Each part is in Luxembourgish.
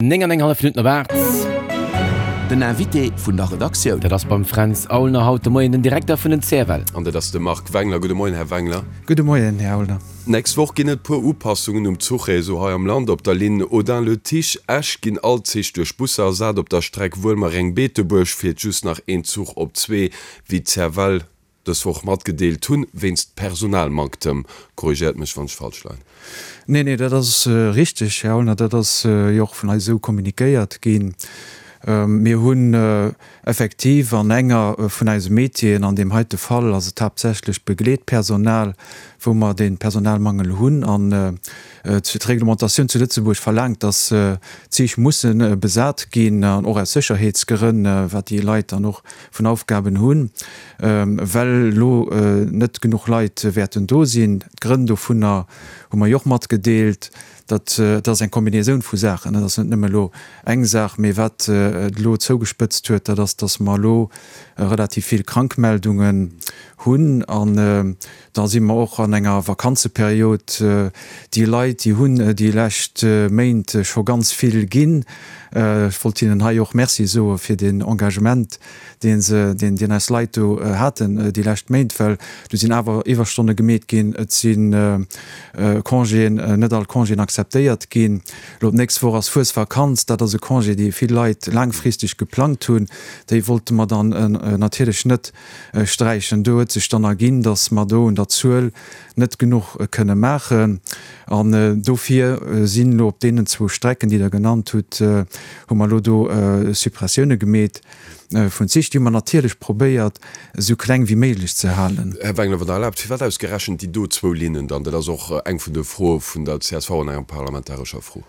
9 an eng hallef Minutten op 8. Den Invité vun der Redaktioun. Dat ass beim Fränz Aulner haut de Moien den Direkter vun den CFL. An dat ass de Marc Wengler. Gudde Moien, Här Wengler. Gudde Moien, Här Aulner. D'nächst Woch ginn et puer Upassungen um Zuchréseau hei am Land. Op der Linn Audun-le-Tiche, Esch ginn all d'Zich duerch Busser ersat. Op der Streck Wuelmereng-Beetebuerg fiert just nach een Zuch op zwee, wéi d'CFL dës Woch matgedeelt hunn, wéinst Personalmanktem. Korrigéiert mech, wann ech falsch leien. Nee, nee, dat ass richteg, Här Aulner. Dat ass jo och vun eis esou kommunikéiert ginn. Mir hunn effektiv an enger vun eise Métieren, an deem heite Fall ass et haaptsächlech d'Begleetpersonal, wou mer dee Personalmangel hunn. An d'Reglementatioun zu Lëtzebuerg verlaangt, dass d'Zich musse besat ginn, an och aus Sécherheetsgrënn, wat déi Leit dann och vun Aufgaben hunn, well elo net genuch Leit wäerten do sinn. D'Grënn dovunner hu mer jo och matgedeelt. Dat ass eng Kombinaisoun vu Saachen, dat ass net nëmme elo eng Saach. Mee wat et elo zougespëtzt huet, dat ass, datt mer elo relativ vill Krankmeldungen hunn. An da si mer och an enger Vakanzeperiod. Déi Leit, déi hunn déi lescht Méint scho ganz vill ginn. Ech wollt hinnen hei och Merci soe fir deen Engagement, deen se, deen, deen eis Leit do haten déi lescht Méint, well do sinn awer Iwwerstonne gemeet ginn, et si Congéen, net all Congéen akzeptéiert ginn. Elo d'nächst Woch ass Fuesvakanz, dat ass e Congé, dee vill Leit laangfristeg geplangt hunn. Déi wollte mer dann natierlech net sträichen. Do huet sech dann erginn, datt mer do un der Zuel net genuch kënne maachen. An dofir sinn elo op deenen zwou Strecken, déi Der genannt hutt, hu mer elo do Suppressioune gemeet vun Zich. Déi hu mer natierlech probéiert, esou kleng wéi méiglech ze halen. Här Wengler, wann Der erlaabt, firwat ausgerechent déi do zwou Linnen dann? Dat ass och eng vun de Froe vun der csv an enger parlamentarescher Fro.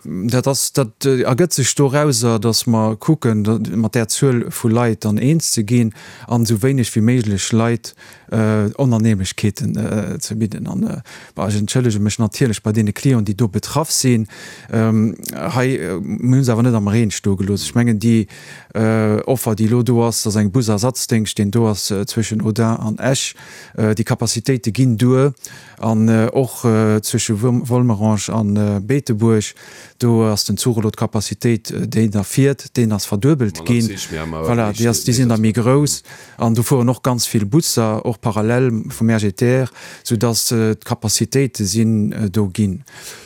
Dat ass, dat ergëtt sech dorauser, datt mer kucken, mat där Zuel vu Leit dann eens ze ginn an esou wéineg wéi méiglech Leit Onannehmlechkeeten ze bidden. An, bon, ech entschëllege mech natierlech bei deene Clienten, déi do betraff sinn. Hei, mir hu se awer net am Reen stoe gelooss. Ech mengen, déi Offer, déi elo do ass, dat ass eng Busersatzdéngscht, deen do ass zwëschen Audun an Esch. Déi Capacitéite ginn duer. An och zwësche Volmerange an Beetebuerg, do ass den Zuch elo, d'Capacitéit, déi da fiert, deen ass verduebelt ginn. Voilà, déi ass, déi sinn da méi grouss. An do fueren och ganz vill Busser, och parallel vum RGTR, soudass d'Capacitéite sinn do ginn.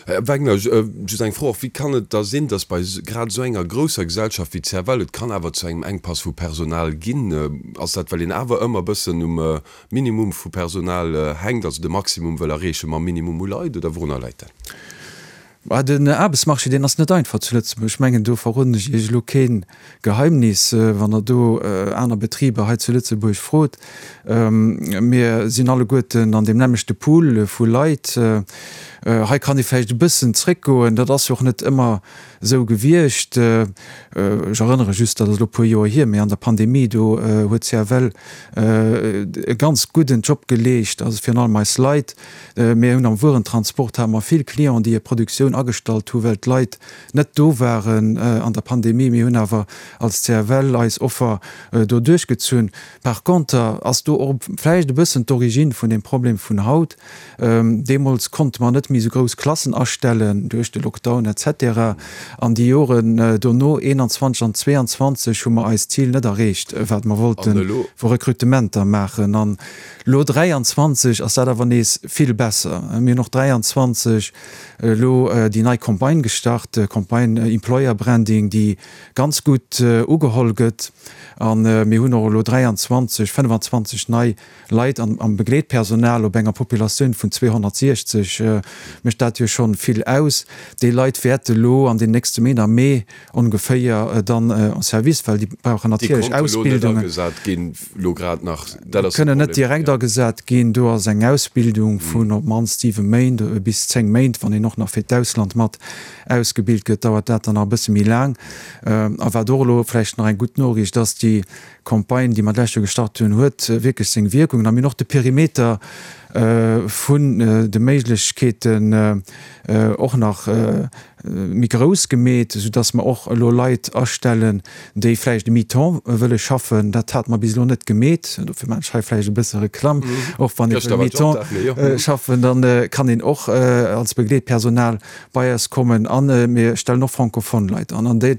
Här Wagner, just eng Fro och, Wéi kann et da sinn, dass bei grad esou enger grousser Gesellschaft wéi d'CFL et kann awer zu engem Enkpass vu Personal ginn? Ass dat, well een awer ëmmer e bëssen um Minimum vu Personal hänkt, also de Maximum wëll erreeche mam Minimum u Leit, oder wourunner läit dat? Bah, den Aarbechtsmarché, deen ass net einfach zu Lëtzebuerg. Ech mengen, do verroden ech Iech elo kee Geheimnis, wann Der do aner Betriber hei zu Lëtzebuerg frot. Mir sinn alleguerten an deem nämmlechte Pool vu Leit. Hei kann ee vläicht e bëssen zréckgoen, dat ass jo och net ëmmer esou gewiescht. Ech erënnere just, dat ass elo e puer Joer hier, mee an der Pandemie, do huet d'CFL e ganz gudden Job geleescht, also virun allem eis Leit. Mir hunn am Wuerentransport hate mer vill Clienten, déi hir Produktioun agestallt hu well d'Leit net do waren an der Pandemie. Mir hunn awer als CFL eis Offer do duerchgezunn. Par conter ass do och vläicht e bëssen d'Origine vun deem Problem vun haut. Deemools konnte mer net méi esou grouss Klassen astellen duerch de Lockdown etc. An déi Joren dono, 21 an 22, hu mer eist Zil net erreecht, wat mer wollte vu Rekrutementer maachen. An elo 23 ass dat awer nees vill besser. Mir hunn och 23 elo déi nei Campagne gestart, Campagne Employer Branding, déi ganz gutt ugeholl gëtt. A mir hunn och elo 23, 25 nei Leit an am Begleetpersonal op enger Populatioun vun 260 mécht dat jo schonn vill aus. Déi Leit wäerte lo an den nächste Méint, am Mee ongeféier, dann en service, well déi brauchen natierlech Ausbildungen. Déi konnte lo net agesat ginn, lo grad nach, dat ass de Problem. Kënnen net direkt agesat ginn. Do ass eng Ausbildung vun op d'mannst 7 Méint bis 10 Méint, wann een och nach fir d'Ausland mat ausgebilt gëtt, dauert dat dann nach e bësse méi laang. A wat och elo vläicht nach eng gutt Noriicht ass, déi Campagne, déi mer d'lescht Joer gestart hunn, huet wierklech seng Wierkungen a mir hunn och de Perimeter vun de Méiglechkeeten och nach. méi grouss gemeet, soudass mer och elo Leit astellen, déi vläicht e Mi-temps wëlle schaffen. Dat hate mer bis elo net gemeet. Dofir maachen ech hei vläicht e bësse Reklamm. Och wann ee wëll Mi-temps schaffen, da kann een och als Begleetpersonal bei eis kommen. A mir stellen och francophone Leit an. An dee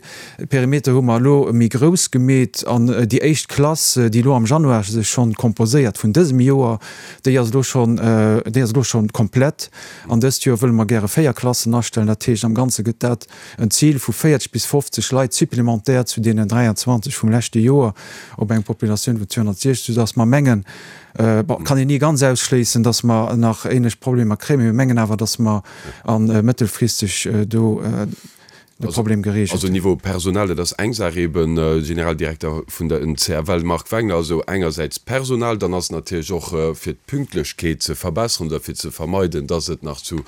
Perimeter hu mer elo méi grouss gemeet. An déi éischt Klass, déi elo am Januar sech schonn composéiert vun dësem Joer, déi ass elo schonn, déi ass elo schonn komplett. An dëst Joer wëlle mer gäre 4 Klassen astellen. Dat heescht, am Ganze gëtt dat en Zil vu 40 bis 50 Leit supplémentaire zu deenen 23 vum leschte Joer op eng Populatioun vun 260, soudass mer mengen, bon, kann een ni ganz ausschléissen, dass mer nach ähnlech Problemer kréien, mee mir mengen awer, dass mer a mëttelfristeg do, de Problem geregelt. Also Niveau Personal, dat ass eng Saach eben, Generaldirekter vun der CFL Marc Wengler, also engersäits Personal, dann ass natierlech och fir d'Pünktlechkeet ze verbesseren oder fir ze vermeiden, dass et nach zu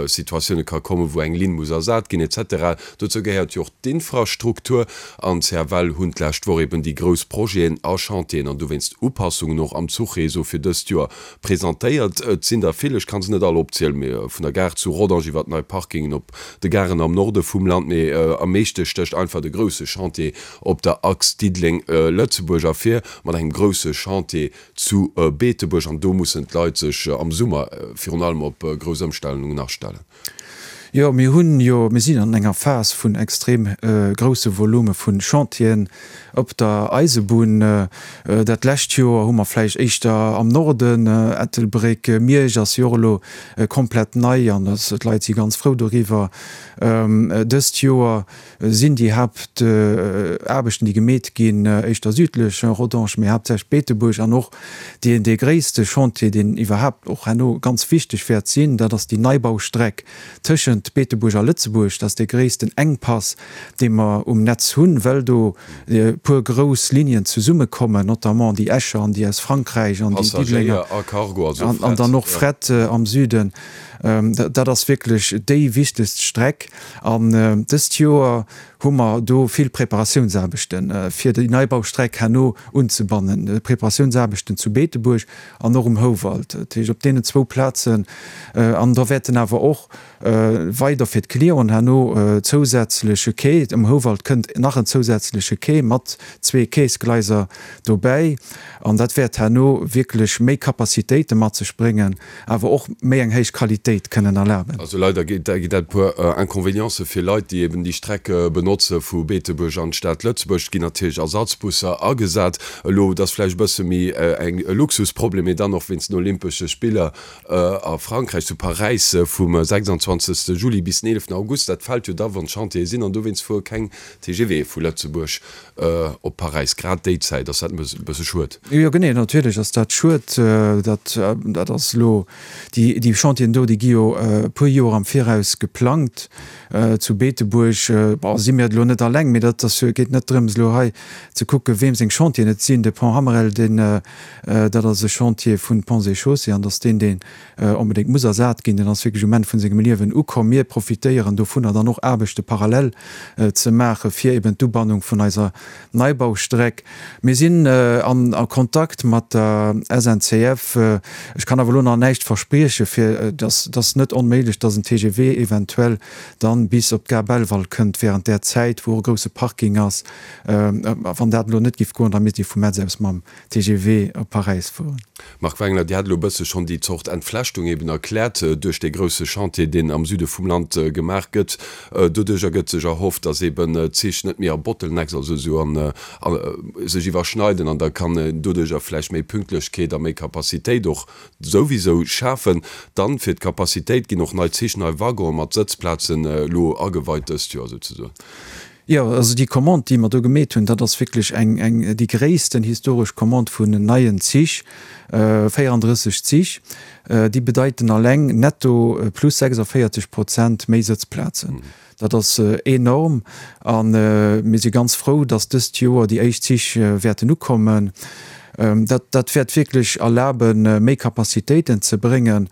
Situatioune ka kommen, wou eng Linn muss ersat ginn et cetera. Dozou gehéiert jo och d'Infrastruktur an d'CFL hunn d'lescht Woch eben déi grouss Projeten a Chantieren an dowéinst Upassungen och am Zuchreseau fir dëst Joer presentéiert. Et sinn der vill, ech kann se net all opzielen, mee vun der Gare zu Rodange iwwer nei Parkingen op de Garen am Norde vum Land, mee am meeschte stécht einfach de grousse Chantier op der Achs Diddeleng-Lëtzebuerg ervir, mat engem grousse Chantier zu Beetebuerg. An do mussen d'Leit sech am Summer virun allem op grouss Ëmstellungen astellen. Jo, mir hunn jo, mir sinn an enger Phas vun extrem grousse Volume vu Chantieren op der Eisebunn. Dat lescht Joer hu mer vläicht éischter am Norden, Ettelbréck, Miersch ass jo och elo komplett nei an d'Leit si ganz frou doriwwer. Dëst Joer sinn déi Haaptaarbechten, déi gemeet ginn, éischter südlech, Rodange, mee haaptsächlech Beetebuerg an och deen dee gréisste Chantier, deen iwwerhaapt och herno ganz wichteg wäert sinn, dat ass déi Neibaustreck tëschent Beetebuerg a Lëtzebuerg. Dat ass dee gréissten Enkpass, dee mer um Netz hunn, well do e puer grouss Linien zesummekommen, notamment déi Escher an déi aus Frankräich an déi Diddelenger an dann och Fret am Süden. Dat ass wierklech déi wichtegst Streck. An dëst Joer hu mer do vill Preparatiounsaarbechten, fir déi Neibaustreck herno unzebannen. Preparatiounsaarbechten zu Beetebuerg an och um Houwald, dat heescht op deenen zwou Plazen. An da wäerten awer och weider fir d'Clienten herno zousätzleche Quai, um Houwald kënnt nach en zousätzleche Quai mat zwee Quaisgleiser dobäi. An dat wäert herno wierklech méi Capacitéite mat sech bréngen. awer och méi eng héich Qualitéit kënnen erlaben. Also leider gétt dat e puer Inconvénientsë fir Leit, déi eben déi Streck benotze vu Beetebuerg an d'Stad Lëtzebuerg. Et ginn natierlech Ersatzbusser agesat. Elo, et ass vläicht e bësse méi eng e Luxusproblem, mee dann och wéinst den Olympesche Spiller a Frankräich, zu Paräis vum 26. Juli bis den 11. August. Dat fält jo da wann d'Chantiere sinn an dowéinst fuere keng TGVe vu Lëtzebuerg op Paräis. Grad déi Zäit ass dat e bësse schued. Jo genee, natierlech ass dat schued. Dat dat ass elo, déi déi Chantieren do, déi gi jo e puer Joer am Viraus geplangt. Zu Beetebuerg, bon, si mir et elo net alleng, mee dat ass jo, geet net drëms elo hei ze kucken, weem seng Chantieren et sinn. De Pont Hammerel, deen, dat ass e Chantier vun Ponts et Chaussées an datt deen, deen onbedéngt muss ersat ginn, deen ass wierklech um Enn vun sengem Liewen ukomm. Mir profitéieren dovunner dann och Aarbechte parallel ze maache fir eben d'Ubannung vun eiser Neibaustreck. Mir sinn an a Kontakt mat der SNCF. Ech kann awer elo nach näischt verspriechen, fir dass et ass net onméiglech, dass en TGV eventuell dann bis op d'Gare Belval kënnt während där Zäit, wou och e grousse Parking ass. A wann dat elo net géif goen, da misst ee vu Metz aus mam TGV op Paräis fueren. Marc Wengler, Dir hat elo e bësse schonn déi Zort Entflechtung eben erkläert duerch dee grousse Chantier, deen am Süde vum Land gemaach gëtt. Doduerch ergëtt sech erhofft, datt eben d'Zich net méi a Bottlenecks, also esou an, sech iwwerschneiden an da kann een doduercher vläicht méi Pünktlechkeet a méi Capacitéit och souwisou schafen. Dann fir d'Capacitéit ginn och nei Zich, nei Waggonen mat Sëtzplazen elo ageweit dëst Joer souzesoen. Jo, also déi Commande, déi mer do gemeet hunn, dat ass wierklech eng, eng, déi gréissten historesch Commande vun neien Zich, 34 Zich. Déi bedeiten alleng netto plus 46 Prozent méi Sëtzplazen. Dat ass enorm a mir si ganz frou, datt dëst Joer déi éischt Zich wäerten ukommen. Dat, dat wäert wierklech erlaben, méi Capacitéiten ze bréngen.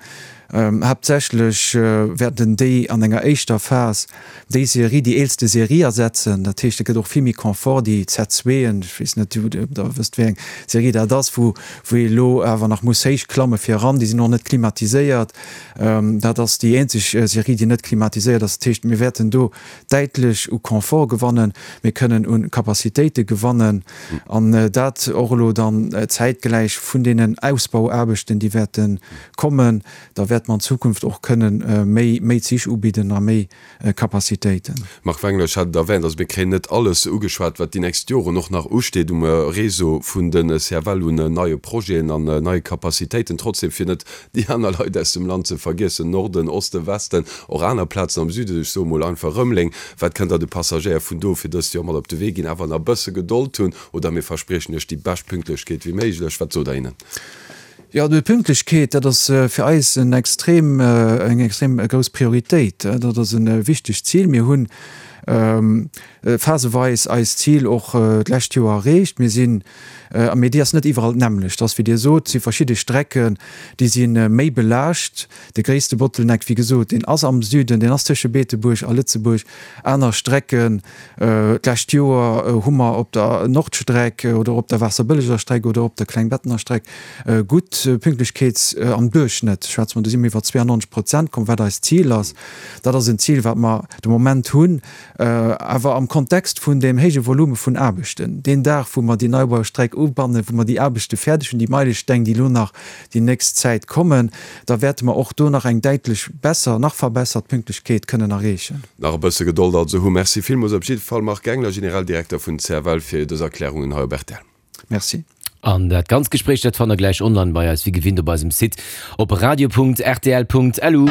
Haaptsächlech wäerten déi an enger éischter Phas déi Serie, déi eelste Serie ersetzen. Dat heescht, et gëtt och vill méi Confort, déi Z-zweeën, ech weess net, ob Der wësst, wéi eng Serie dat ass, wou wou ee elo awer nach muss héich klamme fir eran. Déi sinn och net klimatiséiert. Dat ass déi eenzeg Serie, déi net klimatiséiert ass. Dat heescht, mir wäerten do däitlech u Confort gewannen, mir kënnen u Capacitéite gewannen an dat och elo dann zäitgläich vun deenen Ausbauaarbechten, déi wäerte kommen. Da wäerte mer an Zukunft och kënnen méi, méi Zich ubidden a méi Capacitéiten. Marc Wengler, Ech hat et erwähnt, also mir kréien net alles ugeschwat, wat déi nächst Joren och nach usteet um Réseau vun de CFL un neie Projeten an neie Capacitéiten. Trotzdem, fir net déi aner Leit aus dem Land ze vergiessen, Norden, Osten, Westen, och aner Plazen am Süden, ech soe mol einfach Rëmeleng, wat kënnt Der de Passagéier vun do fir dëst Joer mat op de Wee ginn? Awer nach e bësse Gedold hunn oder mir verspriechen Iech déi bescht Pünktlechkeet wéi méiglech. Wat sot Der hinnen? Jo, déi Pünktlechkeet, dat ass fir eis en extrem, eng extrem grouss Prioritéit. Dat ass e wichtegt Zil. Mir hunn phaseweis eist Zil och d'lescht Joer erreecht. Mir sinn, mee déi ass net iwwerall d'nämmlecht. Ass wéi Dir sot, si verschidde Strecken, déi si méi belaascht. De gréisste Bottleneck, wéi gesot, deen ass am Süden, deen ass tësche Beetebuerg a Lëtzebuerg. Aner Strecken, d'lescht Joer hu mer op der Nordstreck oder op der Waasserbëlleger Streck oder op der Klengbettener Streck gutt Pünktlechkeets, am Duerchschnëtt schwätze mer, do si mer iwwer 92 Prozent komm, wat eist Zil ass. Dat ass en Zil, wat mer de Moment hunn. Awer am Kontext vun deem héije Volume vun Aarbechten, deen Dag, wou mer déi Neibaustreck ubannen, wou mer déi Aarbechte fäerdeg hunn, déi Meilesteng, déi elo nach déi nächst Zäit kommen, da wäerte mer och do nach eng däitlech besser, nach verbessert Pünktlechkeet kënnen erreechen. Nach e bësse Gedold also hu. Merci villmools op jidde Fall, Marc Gengler, Generaldirekter vun CFL, fir dës Erklärungen hei op rtl. Merci. An dat ganzt Gespréich, dat fannt der gläich online bei eis, wéi gewinnt op eisem Site op radio.rtl.lu.